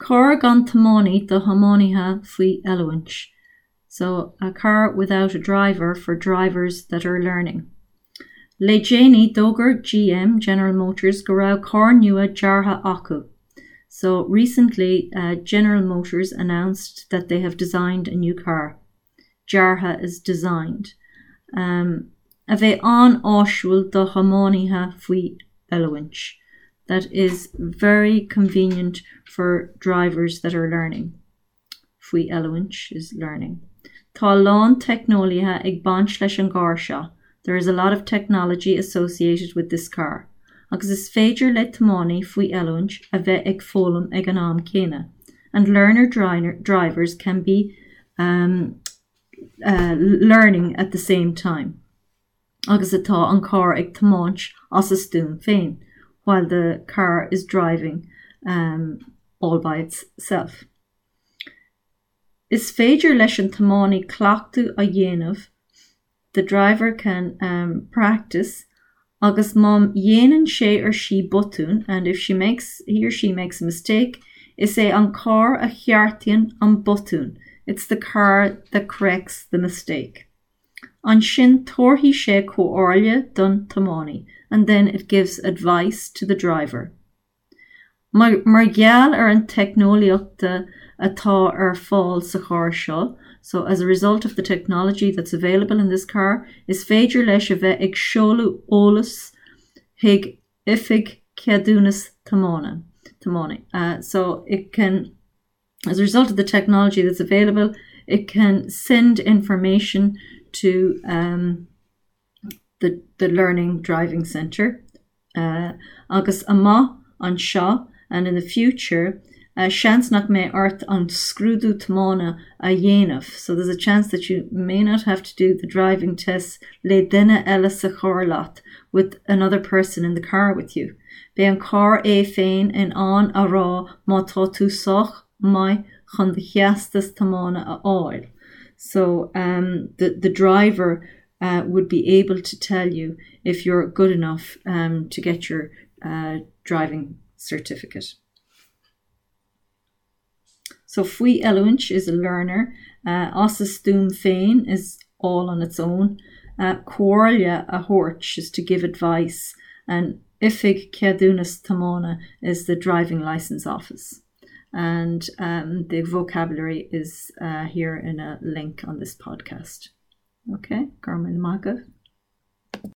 Carr gan tiománaí do thiománaithe faoi oiliúint. So, a car without a driver for drivers that are learning. Le déanaí, d'fhógair GM, General Motors, go raibh carr nua deartha acu. So, recently, General Motors announced that they have designed a new car. Deartha is designed. Um, a bheidh an-áisiúil do thiománaithe faoi oiliúint. That is very convenient for drivers that are learning. Faoi oiliúint is learning. Tá a lán teicneolaíochta ag baint leis an gcarr seo, there is a lot of technology associated with this car, agus is féidir le tiománaí faoi oiliúint a bheith ag foghlaim ag an am céanna, and learner drivers can be um, uh, learning at the same time. Agus atá an carr ag tiomáint as a stuaim féin, while the car is driving um, all by itself. Is féidir leis an tiománaí cleachtadh a dhéanamh the driver can um, practice agus má dhéanann sé or sí botún and if she makes he or she makes a mistake, is é an carr a cheartaíonn an botún it's the car that corrects the mistake. Ansin tabharfaidh sé comhairle don tiománaí and then it gives advice to the driver. Mar gheall ar an teicneolaíocht atá ar fáil sa charr seo, so as a result of the technology that's available in this car, is féidir leis a bheith ag seoladh eolas chuig oifig ceadúnas tiomána. Tiománaí. So it can as a result of the technology that's available, it can send information to um, the, the Learning Driving Centre uh, agus amach anseo and in the future uh, seans nach mbeidh ort an scrúdú tiomána a dhéanamh, so there's a chance that you may not have to do the driving test le duine eile sa charr leat with another person in the car with you. Beidh an carr é féin in ann a rá má tá tú sách maith chun do theastas tiomána a fháil. So um, the, the driver uh, would be able to tell you if you're good enough um, to get your uh, driving certificate. So faoi oiliúint is a learner, uh, as a stuaim féin is all on its own. Uh, comhairle a thabhairt is to give advice and oifig ceadúnas tiomána is the driving license office. And um, the vocabulary is uh, here in a link on this podcast. Okay, Garmin Magav.